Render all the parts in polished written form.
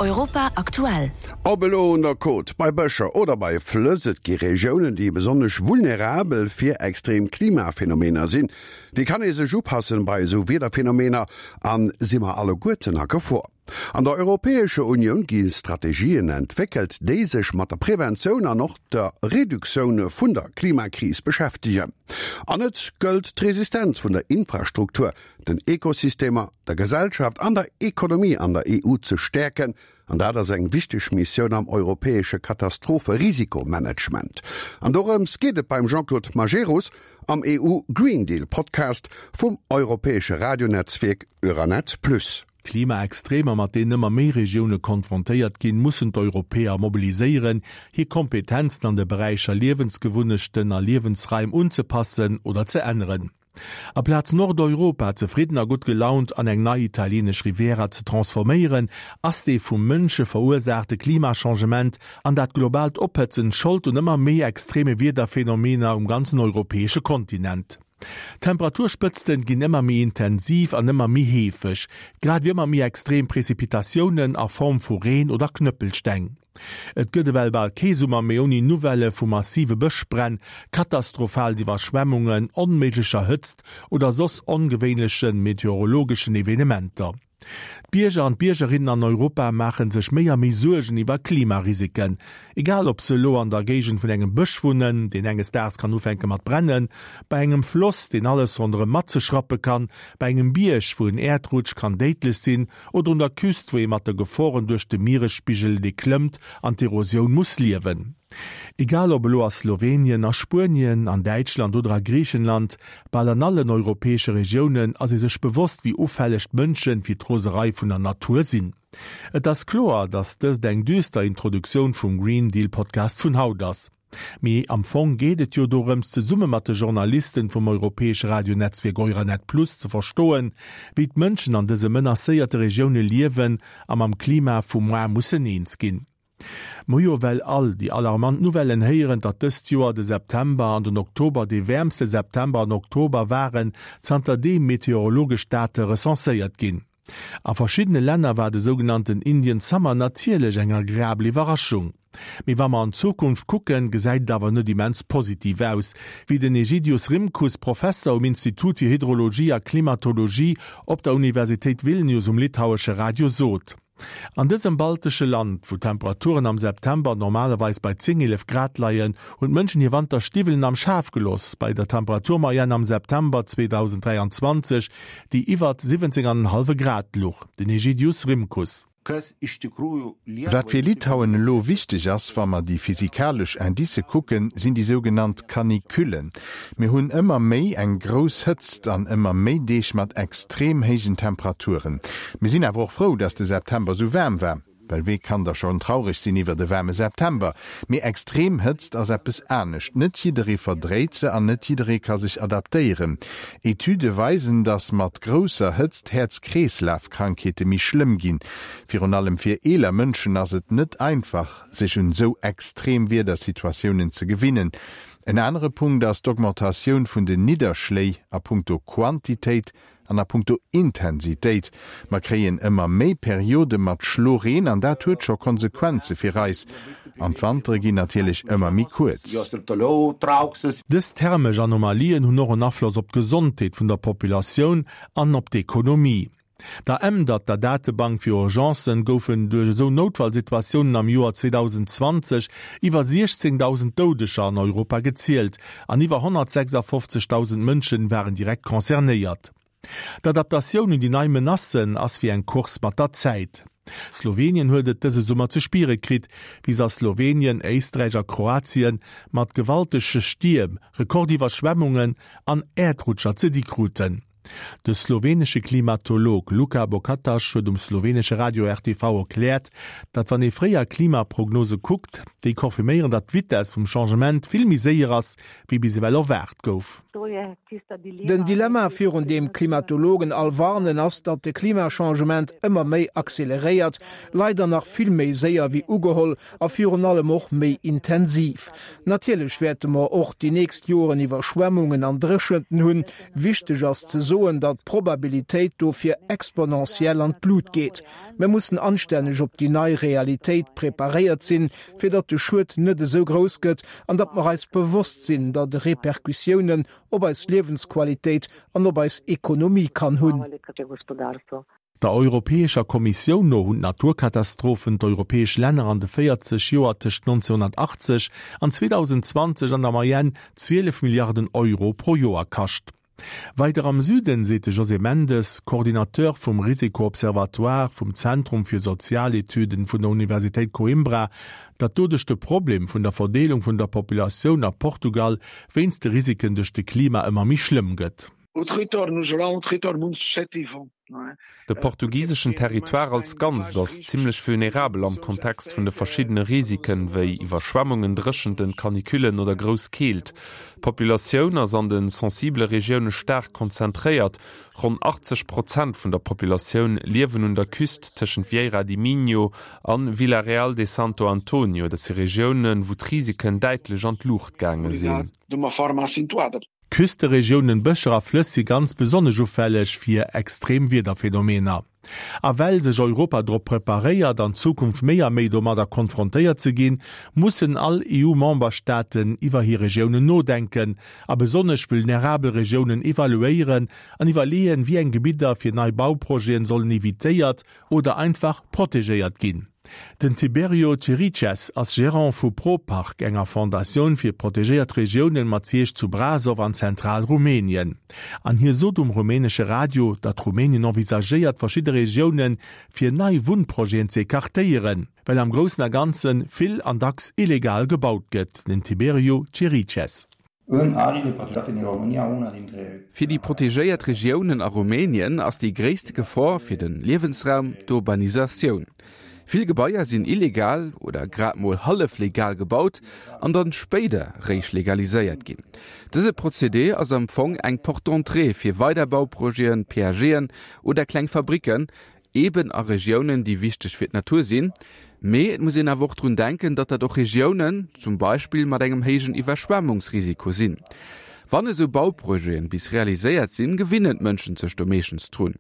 Europa aktuell. Ob elo un der Côte, bei Bëscher oder bei Flëss, et gi Regiounen, déi besonnesch vulnerabel fir extrem Klimaphenomener sinn. Wéi kann ee sech upassen bei esou Wiederphenomener an si mer alleguerten a Gefor? An der Europäescher Unioun gi Strategien entwéckelt, déi sech mat der Preventioun an och der Reduktioun vun der Klimakris beschäftegen. An et gëllt d'Resistenz vun der Infrastruktur, den Ekosystemer, der Gesellschaft an der Ekonomie an der EU ze stäerken. An dat ass eng wichteg Missioun am europäesche Katastrophe-Risikomanagement. An dorëms geet et beim Jean-Claude Majerus am EU Green Deal Podcast vum europäesche Radionetzwierk Euranet Plus. Klimaextremer, mat deenen ëmmer méi Regioune konfrontéiert ginn, mussen d'Europäer mobiliséieren, hir Kompetenzen an de Beräicher Liewensgewunnechten a Liewensraim unzepassen oder ze änneren. Aplaz Nordeuropa zefridden a gutt gelaunt an eng nei italienesch Riviera ze transforméieren, ass dee vum Mënsche verursaachte Klimachangement an dat globaalt Ophëtzen Schold un ëmmer méi extreme Wiederphenomener um ganzen europäesche Kontinent. D'Temperaturspëtzten ginn ëmmer méi intensiv an ëmmer méi heefeg, grad ewéi ëmmer méi extrem Prezipitatiounen a Form vu Reen oder Knëppelsteng. Et gëtt ewell bal kee Summer méi ouni Nouvellë vu massive Bëschbränn, katastrophalen Iwwerschwemmungen, onméiglecher Hëtzt oder soss ongewéinleche meteorologeschen Evenementer. D'Bierger an d'Biergerinnen an Europa maache sech méi a méi Suergen iwwer Klimarisiken. Egal ob se elo an der Géigend vun engem Bësch wunnen, deen enges Daags kann ufänke mat brennen, bei engem Floss, deen alles ronderëm matzeschrappe kann, bei engem Bierg, wou en Äerdrutsch kann déidlech sinn, oder un der Küst, wou ee mat de Geforen duerch de Mieresspigel, dee klëmmt, an d'Erosioun muss liewen. Egal ob elo a Slowenien, a Spuenien, an Däitschland oder a Griichenland, bal an allen europäesche Regiounen ass ee sech bewosst, wéi ufälleg d'Mënsche fir d'Roserei vun der Natur sinn. Et ass kloer, datt dëst eng düster Introduktioun vum Green Deal Podcast vun haut ass. Mee am Fong geet et jo dorëms, zesumme mat de Journalisten vum europäesche Radionetzwierk Euranet Plus ze verstoen, wéi d'Mënschen an dëse menacéierte Regioune liewen a mam Klima vu moar mussen eens ginn. Mer hu jo well all déi alarmant Nouvellen héieren, datt dëst Joer de September an den Oktober dee wäermste September an Oktober waren, zanter deem meteorologesch Date recenséiert ginn. A verschiddene Länner war de sougenannten Indian Summer natierlech eng agreabel Iwwerraschung. Mee wa mer an d'Zukunft kucken, gesäit et awer net immens positiv aus, wéi den Egidius Rimkus, Professer um Institut fir Hydrologie a Klimatologie op der Universitéit Vilnius um litauesche Radio sot. An dësem baltesche Land, wou d'Temperaturen am September normalerweis bei 10, 11 Grad leien, hunn d'Mënschen hir Wanterstiwwelen am Schaf gelooss. Bei der Temperaturmoyenne am September 2023, déi iwwert 17 an en hallwe Grad luch. Den Egidius Rimkus. Wat fir Litauen elo wichteg ass, wa mer déi physikalesch Indicë kucken, sinn déi sougenannt Canicullen. Mir hunn ëmmer méi eng grouss Hëtzt an ëmmer méi Deeg mat extrem héijen Temperaturen. Mir sinn awer och frou, dass de September esou waarm war, well wee kann da schonn traureg sinn iwwert e waarme September? Mee extrem Hëtzt ass eppes anescht. Net jidderee verdréit se an net jidderee ka sech adaptéieren. Etüde weisen, dass mat grousser Hëtzt Häerz-Kreeslaf-Krankheete méi schlëmm ginn. Virun allem fir eeler Mënschen ass et net einfach, sech un esou extrem Wiedersituatiounen ze gewinnen. En anere Punkt ass d'Augmentatioun vun den Nidderschléi a punkto Quantitéit an a punkto Intensitéit. Mer kréien ëmmer méi Periode mat Schloreen an dat huet scho Konsequenze fir eis. An d'Wantere ginn natierlech ëmmer méi kuerz. Dës thermesch Anomalien hunn och en Afloss op d'Gesondheet vun der Populatioun an op d'Ekonomie. Der Ämdert der Datebank fir Urgencen goufen duerch esou Noutfallsituatiounen am Joer 2020 iwwer 16.000 Doudeger an Europa gezielt an iwwer 156.000 Mënschen waren direkt concernéiert. D'Adaptatioun un déi nei Menacen ass wéi eng Course mat der Zäit. Slowenien huet et dëse Summer ze spiere kritt, wéi se a Slowenien, Éisträich a Kroatien mat gewaltege Stierm, Rekordiwwerschwemmungen an Äerdrutscher ze di kruten. De slowenesche Klimatolog Luka Bokataš huet um slowenesche Radio RTV erkläert, datt wann ee fréier Klimaprognose kuckt, déi confirméieren, datt d'Vitess vum Changement vill méi séier ass, wéi bis ewell erwaart gouf. Den Dilemma, virun deem Klimatologen all warnen, ass, datt de Klimachangement ëmmer méi acceleréiert, leider nach vill méi séier wéi ugeholl a virun allem och méi intensiv. Natierlech wäerte mer och déi nächst Joren Iwwerschwemmungen an Dréchenten hunn. Wichteg ass ze soen. soen, datt d'Probabilitéit dofir exponentiell an d'Lut geet. Mir mussen anstänneg op déi nei Realitéit preparéiert sinn, fir datt de Schued net esou grouss gëtt an datt mer eis bewosst sinn, datt e Repercussiounen op eis Liewensqualitéit an op eis Ekonomie kann hunn. Der Europäescher Kommissioun no hunn d'Naturkatastrophen d'europäesch Länner an de 40 Joer tëscht 1980 an 2020 an der Moyenne 12 Milliarden Euro pro Joer kascht. Weider am Süden seet de José Mendes, Coordinateur vum Risiko-Observatoire vum Zentrum fir Sozialetüden vun der Universitéit Coimbra, datt doduerch de Problem vun der Verdeelung vun der Populatioun a Portugal wéinst de Risiken duerch de Klima ëmmer méi schlëmm gëtt. De portugiseschen Territoire als Ganzt ass zimmlech vulnerabel am Kontext vun de verschiddene Risiken, wéi Iwwerschwemmungen, Dréchenten, Canicullen oder grouss Keelt. D'Populatioun ass an de sensibele Regioune staark konzentréiert. Ronn 80 Prozent vun der Populatioun liewen un der Küst tëschent Vieira di Minho an Vila Real de Santo António. Dat si Regiounen, wou d'Risiken däitlech an d'Luucht gaange sinn. Küsteregiounen, Bëscher a Flëss si ganz besonnesch ufälleg fir extrem Wiederphenomener. A well sech Europa drop preparéiert, an Zukunft méi a méi domadder konfrontéiert ze ginn, mussen all EU-Memberstaaten iwwer hir Regiounen nodenken a besonnesch vulnerabel Regiounen evaluéieren an iwwerleeën, wéi eng Gebidder fir nei Bauprojeten sollen evitéiert oder einfach protegéiert ginn. Den Tiberio Chiriches ass Gerant vu ProPark, enger Fondatioun fir protegéiert Regiounen mat Siège zu Brasov an Zentral-Rumänien. An hie sot um rumänesche Radio, datt Rumänien envisagéiert verschidde Regioune fir nei Wunnprojeten ze ecartéieren, well am Groussen a Ganze vill an dacks illegal gebaut gëtt. Den Tiberiu Chiriches. Fir déi protegéiert Regiounen a Rumänien ass déi gréisste Gefor fir de Liewensraum d'Urbanisatioun. Vill Gebaier sinn illegal oder grad mol hallef legal gebaut an dann spéider réischt legaliséiert ginn. Dëse Procédé ass am Fong eng Porte d'entrée fir weider Bauprojeten, PAGen oder kleng Fabricken, eben a Regiounen, déi wichteg fir d'Natur sinn. Mee et muss een awer och drun denken, datt dat och Regiounen zum Beispill mat engem héijen Iwwerschwemmungsrisiko sinn. Wann esou Bauprojete bis realiséiert sinn, gewinnen d'Mënschen sech do meeschtens drun.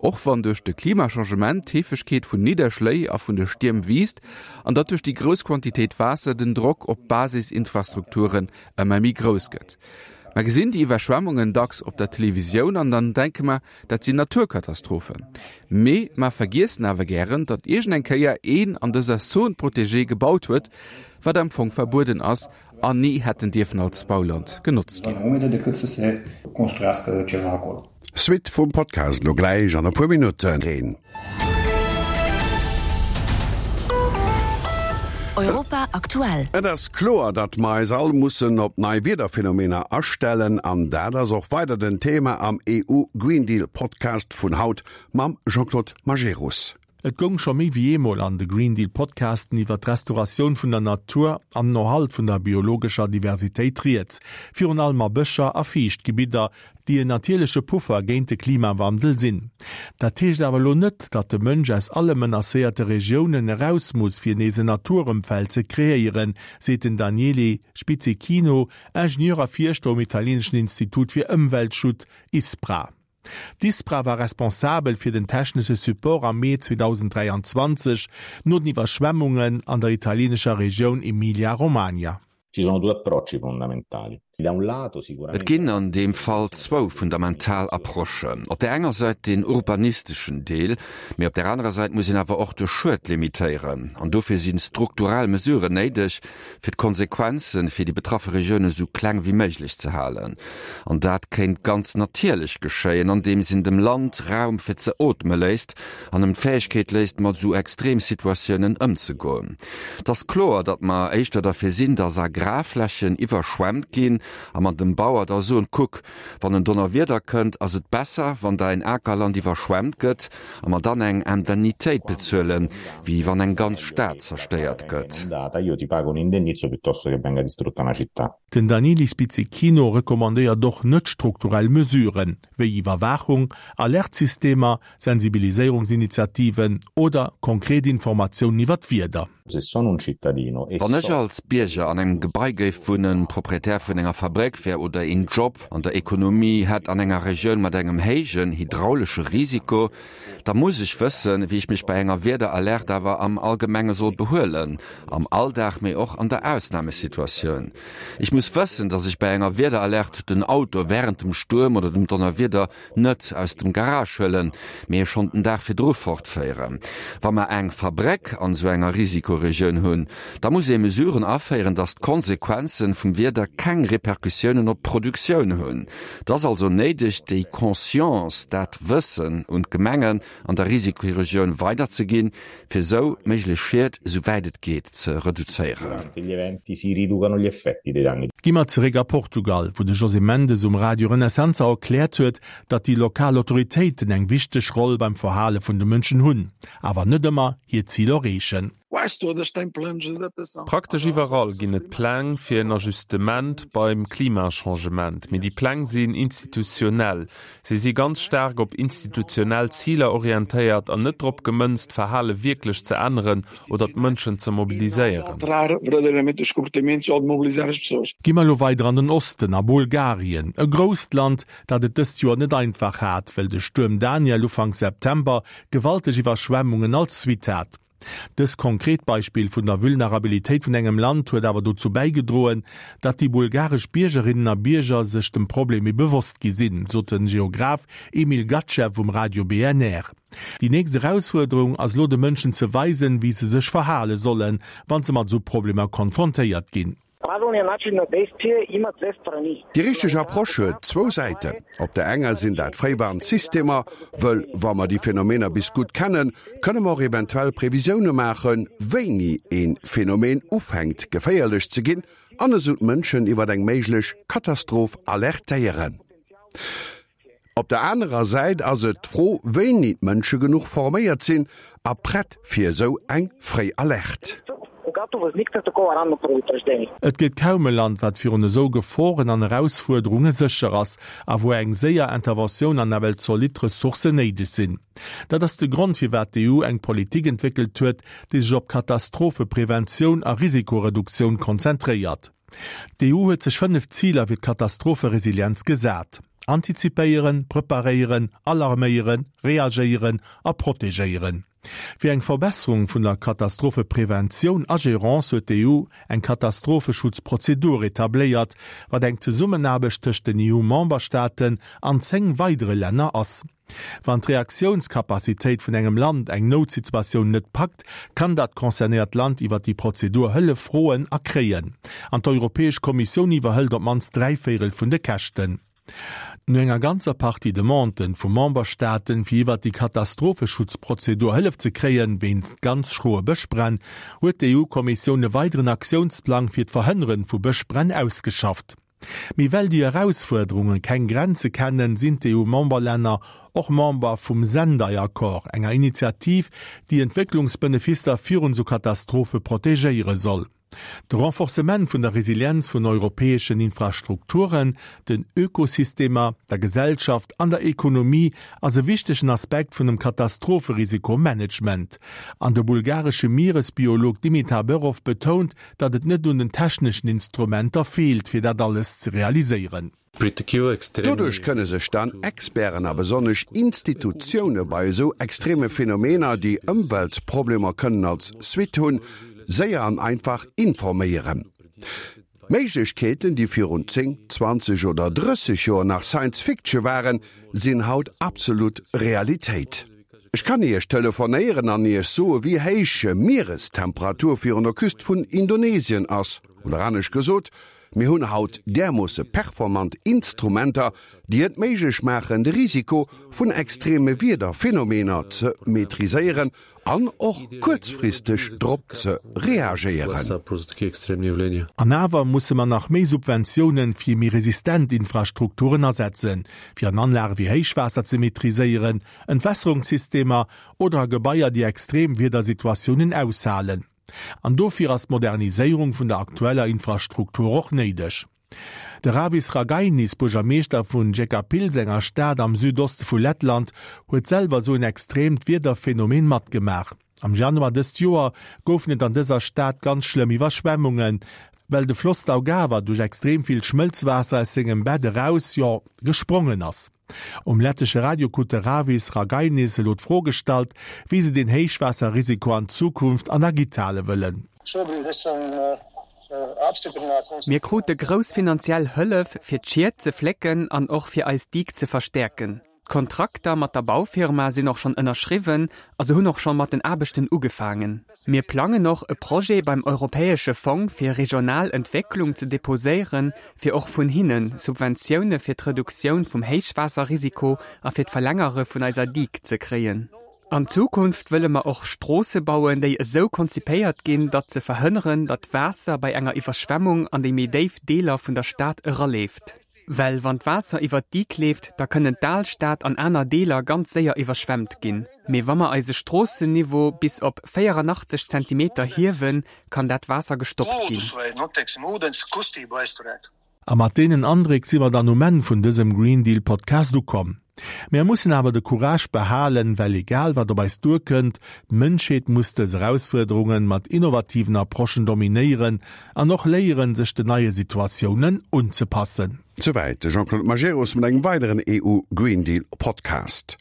Och wann duerch de Klimachangement d'Heefegkeet vun Nidderschléi a vun de Stierm wiisst an datt duerch déi grouss Quantitéit Waasser den Drock op d'Basisinfrastrukturen ëmmer méi grouss gëtt. Mer gesinn déi Iwwerschwemmungen dacks op der Televisioun an dann denke mer, Dat sinn Naturkatastrophen. Mee mer vergiessen awer gären, datt iergend eng Kéier een an dëser Zone protégée gebaut huet, wat am Fong verbueden ass an ni hätten dierfen als Bauland genotzt ginn. Suite vum Podcast lo gläich an e puer Minutten. Europa aktuell. Et ass kloer, datt mer eis all mussen op nei Wiederphenomener astellen an dat ass och weider den Thema am EU Green Deal Podcast vun haut mam Jean-Claude Majerus. Et goung scho méi wéi eemol an de Green Deal Podcasten iwwer d'Restauratioun vun der Natur an den Erhalt vun der biologescher Diversitéit rieds, virun allem a Bëscher a Fiichtgebidder, déi en natierleche Puffer géint de Klimawandel sinn. Dat heescht awer elo net, datt de Mënsch aus alle menacéierte Regiounen eraus muss, fir nees en Naturëmfeld ze kreéieren, seet den Daniele Spizzichino, Ingenieur a Fierschter um italieneschen Institut fir Ëmweltschut, ISPRA. D'ISPRA war responsabel fir den technesche Support am Mee 2023 no den Iwwerschwemmungen an der italienescher Regioun Emilia-Romagna. Ci sono due approcci fondamentali. Et ginn an deem Fall zwou fundamental Approchen. Op där enger Säit deen urbanisteschen Deel, mee op där anerer Säit muss een awer och de Schued limitéieren. An dofir si strukturell Mesuren néideg, fir d'Konsequenze fir déi betraffe Regioune sou kleng wéi méiglech ze halen. An dat kéint ganz natierlech geschéien, andeems een dem Land Raum fir ze ootme léisst an em d'Fäegkeet léisst, mat esou Extremsituatiounen ëmzegoen. Et ass kloer, datt mer éischter derfir sinn, datt Agrarflächen iwwerschwemmt ginn a mer dem Bauer da soen, Kuck, wann en Donnerwieder kënnt, ass et besser, wann däin Akerland iwwerschwemmt gëtt a mer dann eng Indemnitéit bezuelen, wéi wann eng ganz Stad zerstéiert gëtt. Den Daniele Spizzichino recommandéiert och net-strukturell Mesuren, wéi Iwwerwaachung, Alertsystemer, Sensibiliséierungsinitiativen oder konkret Informatiounen iwwer d'Wieder. Wann ech als Bierger an engem Gebai géif wunnen, Proprietär vun enger Fabréck wär oder een Job an der Ekonomie hätt an enger Regioun mat engem héijen hydraulesche Risiko, da muss ech wëssen, wéi ech mech bei enger Wiederalerte awer am Allgemenge soll behuelen, am Alldag, mee och an der Ausnamesituatioun. Ech muss wëssen, dass ech bei enger Wiederalerte den Auto wärend dem Stuerm oder dem Donnerwieder net aus dem Garage huelen, mee e schonn den Dag virdru fortféieren. Wa mer eng Fabréck an esou enger Risikoregioun hunn, da muss ee Mesuren aféieren, dass d'Konsequenzen vum Wieder keng Repercussiounen op d'Produktioun hunn. Et ass also néideg, déi Conscience, dat Wëssen un d'Gemengen an der Risikoregioun weiderzeginn, fir esou méiglech Schied, esou wäit et geet, ze reduzéieren. Gi mer zeréck a Portugal, wou de José Mendes um Radio Renascença erkläert huet, datt déi lokal Autoritéiten eng wichteg Roll beim Verhale vun de Mënschen hunn, awer net ëmmer hir Zil erreechen. Praktesch iwwerall ginn et Pläng fir en Ajustement beim Klimachangement, mee déi Pläng sinn institutionell. Si si ganz staark op institutionell Ziler orientéiert an net drop gemënzt, d'Verhale wierklech ze änneren oder d'Mënschen ze mobiliséieren. Gi mer elo weider an den Osten, a Bulgarien, e grousst Land, dat et dëst Joer net einfach hat, well de Stuerm Daniel Ufank September gewalteg Iwwerschwemmungen als Suite hat. Dëst konkret Beispill vun der Vulnerabilitéit vun engem Land huet awer dozou bäigedroen, datt déi bulgaresch Biergerinnen a Bierger sech dem Problem méi bewosst gi sinn, sot den Geograph Emil Gatchev um Radio BNR. Déi nächst Erausfuerderung ass elo de Mënschen ze weisen, wéi se sech verhale sollen, wann se mat esou Problemer konfrontéiert ginn. Déi richteg Approche huet zwou Säiten. Op der enger sinn dat Fréiwarnsystemer, wëll wa mer déi Phänomener bis gutt kennen, kënne mer och eventuell Previsioune maachen, wéini ee Phänomen ufänkt geféierlech ze ginn an esou d'Mënschen iwwer eng méiglech Katastroph alertéieren. Op der anerer Säit ass et d'Fro, wéini d'Mënsche genuch forméiert sinn a prett fir esou eng fréi Alerte. Et gëtt kaum e Land, wat virun esou Geforen an Erausfuerderunge sécher ass a wou eng séier Interventioun an nawell zolidd Ressourcen néideg sinn. Dat ass de Grond, firwat d'EU eng Politik entwéckelt huet, déi sech op Katastrophepreventioun a Risikoreduktioun konzentréiert. D'EU huet sech 5 Ziler fir d'Katastropheresilienz gesat, antizipéieren, preparéieren, alarméieren, reagéieren a protegéieren. Fir eng Verbesserung vun der Katastrophepreventioun a Gerance huet d'EU eng Katastropheschutzprozedur etabléiert, wat eng Zesummenaarbecht tëscht den EU-Memberstaaten an 10 weidere Länner ass. Wann d'Reaktiounskapazitéit vun engem Land eng Noutsituatioun net packt, kann dat concernéiert Land iwwer déi Prozedur Hëllef froen a kréien. An d'Europäesch Kommissioun iwwerhëlt op d'mannst dräivéirel vun de Käschten. No enger ganzer Partie Demanden vu Memberstaaten, fir iwwer déi Katastropheschutzprozedur Hëllef ze kréien, wéinst ganz schroe Bëschbränn, huet d'EU-Kommissioun e weideren Aktiounsplang fir d'Verhënneren vu Bëschbränn ausgeschafft. Mee well déi Erausfuerderunge keng Grenze kennen, sinn d'EU-Memberlänner och Member vum Sendai-Accord, enger Initiativ, déi Entwécklungsbenefisser virun esou Katastrophe protegéiere soll. De Renforcement vun der Resilienz vun europäeschen Infrastrukturen, den Ökosystemer, der Gesellschaft an der Ekonomie ass e wichtegen Aspekt vun dem Katastropherisikomanagement. An de bulgaresche Mieresbiolog Dimitar Berov betount, datt et net un den techneschen Instrumenter feelt, fir dat alles ze realiséieren. Doduerch kënne sech dann Experten a besonnesch Institutioune bei esou extreme Phänomener, déi Ëmweltproblemer kënnen als Suite hunn, séier an einfach informéieren. Méiglechkeeten, déi virun 10, 20 oder 30 Joer nach Science Fiction waren, sinn haut absolut Realitéit. Ech kann Iech telefonéieren an Iech soe wéi héich Mierestemperatur virun der Küst vun Indonesien ass. Oder anescht gesot, mir hunn haut därmoosse performant Instrumenter, déi et méiglech maachen, de Risiko vun extreme Wiederphenomener ze maîtriséieren an och kuerzfristeg drop ze reagéieren. An awer musse mer nach méi Subventiounen fir méi resistent Infrastrukturen asetzen, fir an Anlage wéi Héichwaasser ze maîtriséieren, Entwässerungssystemer oder a Gebaier, déi extrem Wiedersituatiounen aushalen. An dofir ass d'Moderniséierung vun der aktueller Infrastruktur och néideg. De Ravis Ragainis, Buergermeeschter vun Jekabpils, enger Stad am Südoste vu Lettland, huet selwer esou en extreemt Wiederphenomen matgemaach. Am Januar dëst Joer goufen et an dëser Stad ganz schlëmm Iwwerschwemmungen, well de Floss Daugava duerch extrem vill Schmëlzwaasser aus sengem Bett eraus, jo, gesprongen ass. Um lettesche Radio krut de Ravis Ragainis elo d'Fro gestallt, wéi se den Héichwaasserrisiko an Zukunft an der Gitt hale wëllen. Mir krute grouss finanziell Hëllef, fir d'Schied ze flécken an och fir eis Digue ze verstäerken. D'Kontrakter mat der Baufirma sinn och schonn ënnerschriwwen a se hunn och scho mat den Aarbechten ugefaangen. Mir plangen och, e Projet beim Europäesche Fong fir regional Entwécklung ze deposéieren, fir och vun hinne Subventioune fir d'Reduktioun vum Héichwaasserrisiko a fir d'Verlängere vun eiser Digue ze kréien. An Zukunft wëlle mer och Stroosse bauen, déi esou konzipéiert ginn, datt se verhënneren, datt Waasser bei enger Iwwerschwemmung an déi méi déif Deeler vun der Stad eraleeft. Well wann d'Waasser iwwert d'Digue leeft, da kënnen d'Alstad an aner Deeler ganz séier iwwerschwemmt ginn. Mee wa mer eise Stroossenniveau bis op 84 Zentimeter hiewen, kann dat Waasser gestoppt ginn. A mat deenen Andréck si mer dann um Enn vun dësem Green Deal Podcast ukomm. Mär mussen awer de Courage behalen, well egal wat op eis duerkënnt, d'Mënschheet muss dës Erausfuerderungen mat innovativen Approchen dominéieren an och léieren, sech den neie Situatiounen unzepassen. Souwäit de Jean-Claude Majerus mat engem weideren EU Green Deal Podcast.